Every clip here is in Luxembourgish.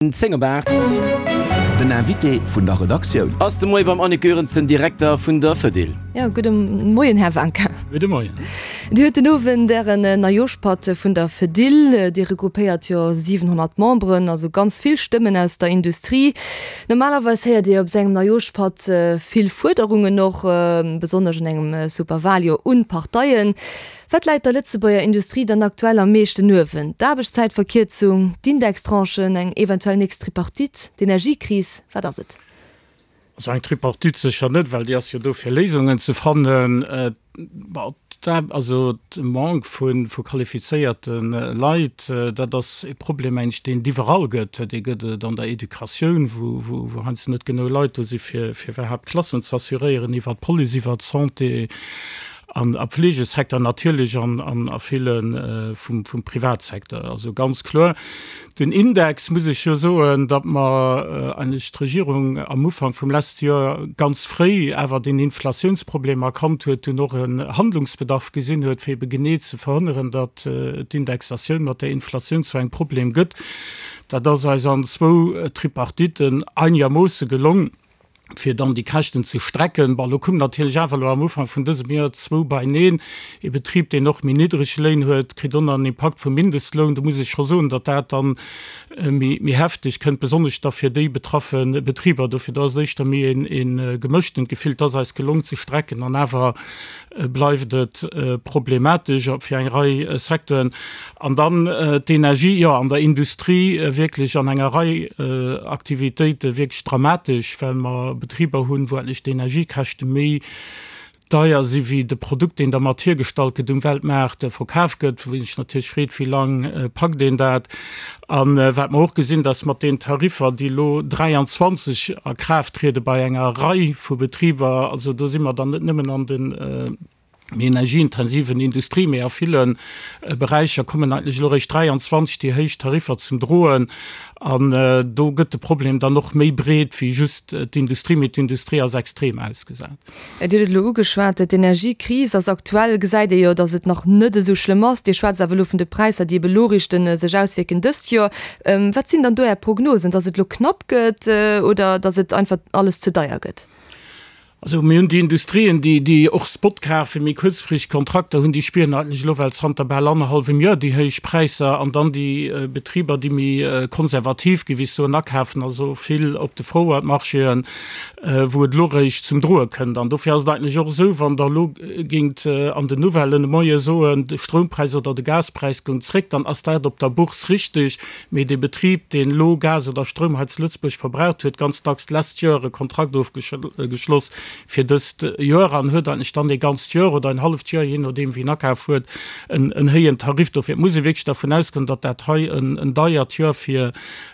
10 op 8. Den Invité vun der Redaktioun. Ass de Moie beim Annick Goerens, den Direkter vun der Fedil. Jo, gudde Moien, Här Wanka. Gudde Moien. Dir huet den Owend Ären Neijooschpatt vun der Fedil. Dir regroupéiert jo 700 Memberen, also ganz vill Stëmmen aus der Industrie. Normalerweis héiert Dir op esou engem Neijooschpatt vill Fuerderungen och, besonnesch an engem Superwaljoer, un d'Parteien. Wat läit der Lëtzebuerger Industrie dann aktuell am meeschten uewen? D'Aarbechtszäitverkierzung, d'Indextranchen, eng eventuell nächst Tripartite, d'Energiekris, wat ass et? Also eng Tripartite sécher net, well déi ass jo do fir Léisungen ze fannen. Also de Manque vu qualifizéierte Leit, dat ass e Problem mengen ech, deen et iwwerall gëtt. Dee gëtt et an der Educatioun, wou heiansdo net genuch Leit do si fir iwwerhaapt Klassen z'assuréieren, iwwer d'Police, iwwer d'Santé. An am Fleegesecteur natierlech an a ville vum Privatsecteur. Also ganz kloer. Den Index, muss ech jo soen, datt mer eigentlech d'Regierung am Ufank vum leschte Joer ganz fréi awer deen Inflatiounsproblem erkannt huet, dunn och en Handlungsbedarf gesinn huet, fir ebe genee ze verhënneren, datt d'Indexatioun mat der Inflatioun zu engem Problem gëtt. Dat ass eis an zwou Tripartiten einegermoosse gelong. fir dann déi Käschten ze strecken. Bon, elo koum natierlech awer elo am Ufank vun dësem Joer zwou beineen. Ee Betrib, deen och méi niddreg Léin huet, kritt och nach en Impakt vum Mindestloun. Do muss ech scho soen, datt dat dann méi, méi hefteg kënnt, besonnesch da fir déi betraffe Betriber. Dofir, do ass et éischter méi een, ee gemëschtent Gefill. Et ass eis gelong ze strecken an awer bleift et problematesch fir eng Rei Secteuren. An dann d'Energie, jo, an der Industrie wierklech an enger Rei Aktivitéite wierklech dramatesch, well mer Betriber hunn, wou endlech d'Energiekäschte méi deier si wéi de Produkt, deen dermat hiergestallt gëtt, um Weltmaart verkaf gëtt, wou ee sech natierlech freet, wéi lang packt een dat. A wat mer och gesinn, dass mat den Tariffer, déi elo 23 a Kraaft triede bei enger Rei vu Betriber, also do si mer dann net nëmmen an de méi energieintensiven Industrie, mee a ville Beräicher kommen eigentlech elo eréischt 23 déi héich Tariffer zum Droen. An do gëtt de Problem dann och méi breet wéi just d'Industrie, mee d'Industrie ass extrem ausgesat. Dir hutt et elo ugeschwat, d'Energiekris ass aktuell, gesäit ee jo, datt et nach net esou schlëmm ass. Dir schwätzt awer elo vun de Präisser, déi ebe lo richten sech auswierken dëst Joer. Wat sinn dann do Är Prognosen, datt et elo knapp gëtt oder datt et einfach alles ze deier gëtt? Also mir hunn déi Industrien, déi, déi och Spot kafen, méi kuerzfristeg Kontrakter hunn, déi spieren eigentlech elo well zanter bal annerhallwem Joer déi héich Präisser. An dann déi Betriber, déi méi konservativ, géif ech soen, akafen, also vill op de Forward-Marchéen, wou et elo eréischt zum Droe kënnt. An dofir ass et eigentlech och esou, wann Der elo géingt an den Nouvellen de Moie soen, de Stroumpräis oder de Gaspräis goung zréck, dann ass dat op der Bourse richteg, mee dee Betrib, deen elo Gas oder Stroum hei zu Lëtzebuerg verbraucht, huet ganz dacks d'lescht Joer e Kontrakt ofgeschloss fir dëst Joer an huet eigentlech dann ee ganzt Joer oder en halleft Joer, jee nodeem wien akaf huet, en héijen Tarif. Dofir muss ee wierklech dervun ausgoen, datt dat hei en deiert Joer fir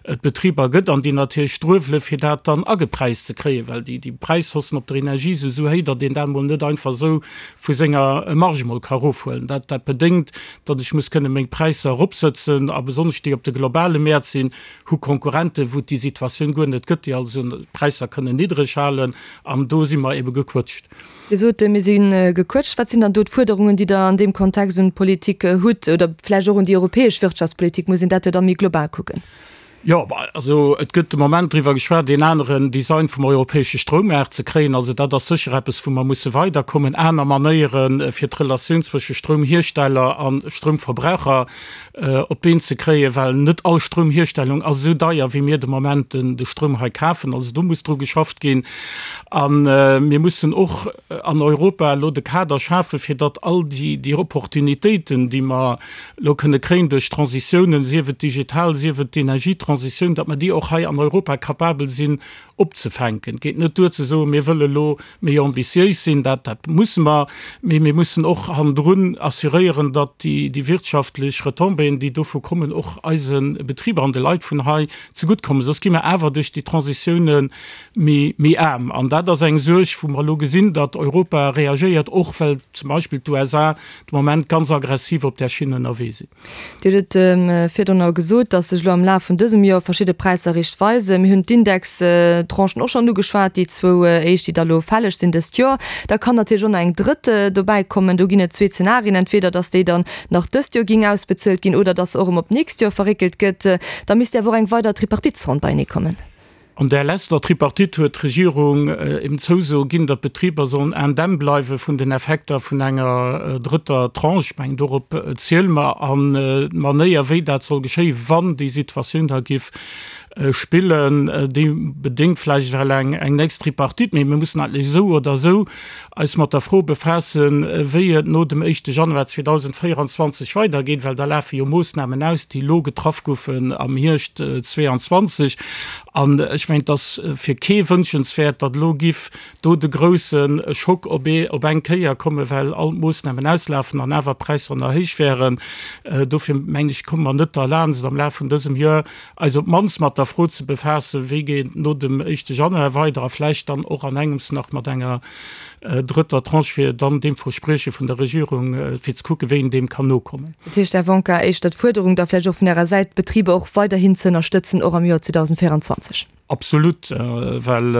et Betriber gëtt an déi natierlech struewele fir dat dann agepräist ze kréien, well déi Präishaussen op der Energie si sou héi, datt een dat emol net einfach esou vu senger Marge emol ka erofhuelen. Dat dat bedéngt, datt ech muss kënne meng Präisser eropsëtzen a besonnesch déi op de globale Mäert sinn, hu Konkurrenten, wou et déi Situatioun guer net gëtt, déi also d'Präisser kënnen niddreg halen an do si mer ebe gequëtscht. Dir sot, mir si gequëtscht. Wat sinn dann do d'Fuerderungen, déi Der an deem Kontext un d'Politik hutt oder vläicht och un déi europäesch Wirtschaftspolitik? Muss een dat jo da méi global kucken? Jo, also et gëtt de Moment driwwer geschwat, een aneren Design vum europäesche Stroummaart ze kréien. Also dat ass sécher eppes, wou mer musse weiderkommen, aner Manéiere fir d'Relatioun zwësche Stroumhiersteller a Stroumverbraucher op d'Been ze kréien, well net all Stroumhierstellung ass esou deier, wéi mir de Moment de Stroum hei kafen. Also do muss dru geschafft ginn. A mir mussen och an Europa elo de Kader schafen, fir datt all déi Opportunitéiten, déi mer elo kënne kréien duerch d'Transitiounen, sief et digital, sief et d'Energietransitioun, datt mer déi och hei an Europa capabel sinn opzefänken. Et geet net duer ze soen, mir wëlle elo méi ambitiéis sinn, dat, dat musse mer, mee mir mussen och hannendrun assuréieren, datt déi, déi wirtschaftlech Retombéeën, déi dovu kommen, och eise Betriber an de Leit vun hei zeguttkommen. Soss gi mer awer duerch déi Transitioune méi, méi aarm. An dat ass eng Suerg, wou mer elo gesinn, datt Europa reagéiert, och well zum Beispill d'USA de Moment ganz aggressiv op där Schinn ënnerwee sinn. Dir hutt et virdrun gesot, datt sech elo am Laf vun dësem Joer verschidde Präisser riicht weisen. Mir hunn d'Indextranchen. Tranchen och schonn ugeschwat, déi zwou éischt, déi da lo fälleg sinn dëst Joer. Da kann natierlech och nach eng drëtt dobäi kommen. Do ginn et zwee Zenarien, entweder datt déi dann nach dëst Joer géing ausbezuelt ginn oder datt se och erëm op d'nächst Joer verréckelt gëtt. Da misst awer och eng weider Tripartitesronn beienee kommen. An där leschter Tripartite huet d'Regierung eben d'Zouso ginn, datt d'Betriber sollen indemn bleiwe vun den Effekter vun enger drëtter Tranche. Ech mengen, dorop ziele mer. An d'Manéier, wéi dat soll geschéien, wann déi Situatioun da giff spillen, déi bedéngt vläicht ewell eng nächst Tripartite. Mee mir mussen eigentlech esou oder esou eis mat der Fro befaassen, wéi et no dem éischte Januar 2024 weidergeet, well da lafe jo Moossnamen aus, déi elo getraff goufen am Hierscht 2022. An ech mengen, et ass fir kee wënschenswäert, datt elo giff do de grousse Schock op ee op eng Kéier kommen, well all d'Moossnamen auslafen an awer d'Präisser nach héich wären. Dofir mengen ech, komme mer net derlaanscht, am Laf vun dësem Joer eis op d'mannst mat der Fro ze befaassen, wéi geet et no dem éischte Januar weider a vläicht dann och an engems nach mat enger drëtter Tranche, fir dann deem Versprieche vun der Regierung, fir ze kucken, wéi een deem kann nokommen. Dat heescht, Här Wonka, éischter d'Fuerderung da vläicht och vun Ärer Säit, d'Betriber och weiderhin ze ënnerstëtzen, och am Joer 2024? Absolut, well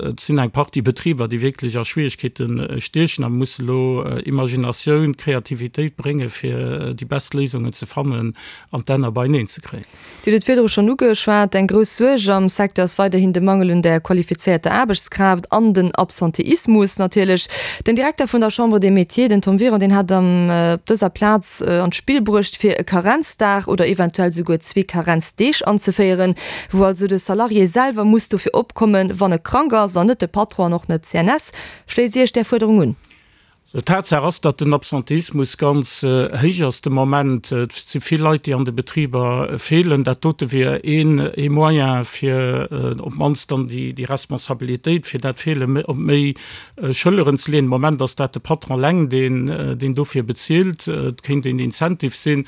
et sinn eng Partie Betriber, déi wierklech a Schwierigkeete stiechen a musse elo Imaginatioun, Kreativitéit bréngen, fir déi best Léisungen ze fannen an d'Enner beieneen ze kréien. Dir hutt et virdru schonn ugeschwat, Eng grouss Suerg am Secteur ass weiderhin de Mangel un der qualifizéierter Aarbechtskraaft an den Absenteismus natierlech. Den Direkter vun der Chambre des Métiers, den Tom Wiron, deen hat am op dëser Plaz an d'Spill bruecht, fir e Karenzdag oder eventuell souguer zwee Karenzdeeg anzeféieren, wou also de Salarié selwer muss dofir opkommen, wann e krank ass, an net de Patron an och net d'CNS. Schléisst Dir Iech där Fuerderung un? Tatsaach ass, datt den Absenteismus ganz héich ass de Moment. Et si vill Leit, déi an de Betriber feelen. Dat dote wier een ee Moyen, fir op d'mannst dann déi Responsabilitéit fir dat Feele op méi Schëlleren ze leeën. De Moment ass dat de Patron eleng, deen deen dofir bezilt. Et kéint een Incentive sinn.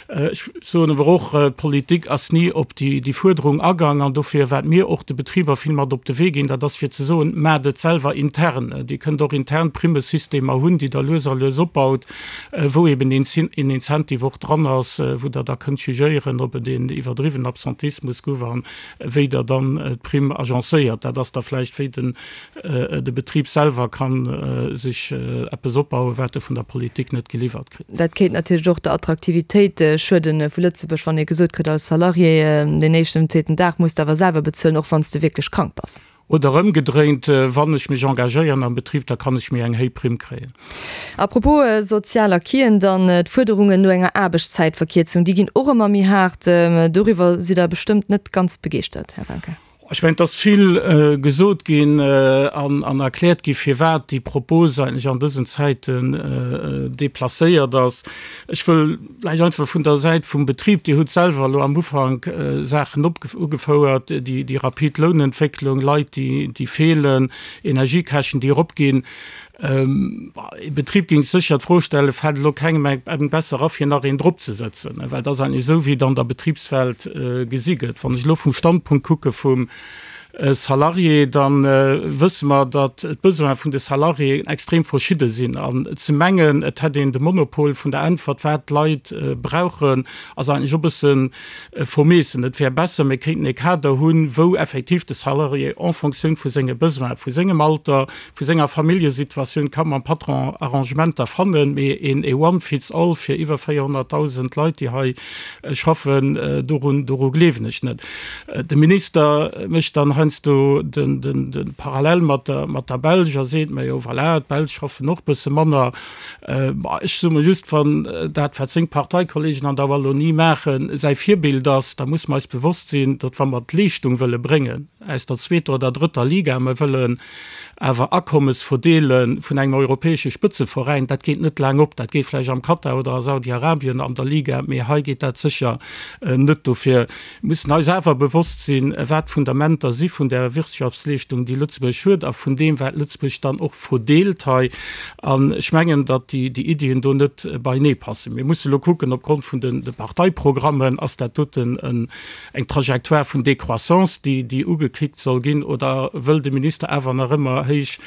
Ech soen awer och, d'Politik ass ni op déi Fuerderung agaang. An dofir, wat mir och de Betriber vill mat op de Wee ginn, dat ass fir ze soen, Maacht et selwer intern. Dir kënnt och intern Primmesystemer hunn, déi Der lues a lues opbaut, wou eben een Incentive och dran ass, wou Der da kënnt jugéieren, ob et een iwwerdriwwen Absentismus gouf a wéi Der dann d'Primm agencéiert. Dat ass da vläicht, wéi den De Betrib selwer ka sech eppes opbauen, wat e vun der Politik net geliwwert kritt. Dat kéint natierlech och der Attraktivitéit schueden vu Lëtzebuerg, wann ee gesot kritt als Salarié, deen éischten an zweeten Dag muss de awer selwer bezuelen, och wann s de wierklech krank bass. Oder ëmgedréint, wann ech mech engagéieren am Betrib, da kann ech méi eng héi Primm kréien. A propos sozial Acquisen dann, d'Fuerderungen no enger Aarbechtszäitverkierzung, déi ginn och ëmmer méi haart. Doriwwer sidd Der bestëmmt net ganz begeeschtert, Här Wanka. Ech mengen, et ass vill gesot ginn an erkläert gi firwat déi Propos eigentlech an dësen Zäiten déplacéiert ass. Ech wëll vläicht einfach vun der Säit vum Betrib, Dir hutt selwer elo am Ufank Saachen ugefouert, déi rapid Lounentwécklung, Leit, déi feelen, Energiekäschten, déi eropginn. Ee Betrib géing sécher d'Fro stellen, Fält elo kengem eng besser a fir nach een drop ze sëtzen? Well dat ass eigentlech esou, wéi et an der Betribswelt gesi gëtt. Wann ech elo vum Standpunkt kucke vum Salarié, da wësse mer, datt d'Besoine vun de Salariéen extrem verschidde sinn. An ze mengen, et hätt een de Monopol vun der Äntwert, wat d'Leit brauchen, ass eigentlech och e bësse vermeessen. Et wär besser, mir kéinten e Kader hunn, wou effektiv de Salarié en Fonctioun vu senge Besoinen, vu sengem Alter, vu senger Familljesituatioun ka mam Patron Arrangementer fannen, mee een e one fits all fir iwwer 400.000 Leit, déi hei schaffen, dorun, doru gleewen ech net. De Minister mécht dann heiansdo de, de, de Parallel mat der, mat der Belsch a seet, Majo voilà, d'Belsch schaffen och bësse manner. Ech soe mer just, wann dat, wat seng Parteikollegen an der Wallonie maachen, säi Virbild ass, da musse mer eis bewosst sinn, datt wa mer d'Leeschtung wëlle bréngen aus der zweeter oder drëtter Liga, mer wëllen awer Akommes verdeele vun engem europäesche Spëtzeveräin, dat geet net laang op. Dat geet vläicht am Katar oder a Saudi-Arabien an der Liga, mee hei geet dat sécher net. Dofir mussen eis awer bewosst sinn, wat d'Fundamenter si vun där Wirtschaftsleeschtung, déi Lëtzebuerg huet, a vun deem, wat Lëtzebuerg dann och verdeelt hei. An ech mengen, datt déi Iddien do net beienee passen. Mir musse lo kucken, opgrond vun de Parteiprogrammen, ass dat doten eng Trajectoire vun Décroissance, déi ugekënnegt. ugekickt soll ginn oder wëll de Minister awer nach ëmmer héich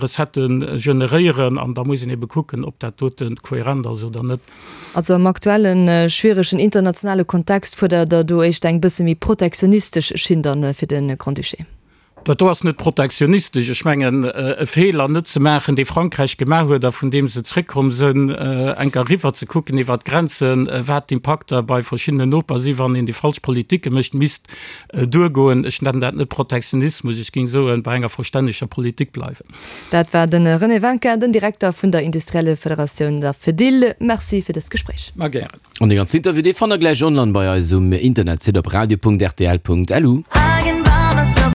Recettë generéieren? An da muss een ebe kucken, ob dat dote kohärent ass oder net. Also am aktuelle schwieregen internationale Kontext fuerdert Der do éischter eng bësse méi protektionistesch Schinn dann fir de Grand-Duché? Dat do ass net protektionistesch. Ech mengen, e Feeler net ze maachen, dee Frankräich gemaach huet a vun deem se zréckkomm sënn, enker eriwwer ze kucken iwwert d'Grenzen, wat d'Impakter bei verschiddenen Noper si wann een déi falsch Politike mécht, misst duergoen. Ech nennen dat net Protektionismus, ech géing soen, bei enger verstänneger Politik bleiwen. Dat war de René Winkin, den Direkter vun der Industriellefederatioun, der Fedil. Merci fir dëst Gespréich. Ma gären. An dee ganzen Interview, dee fannt der gläich online bei eis um Internetsite op radio.rtl.lu.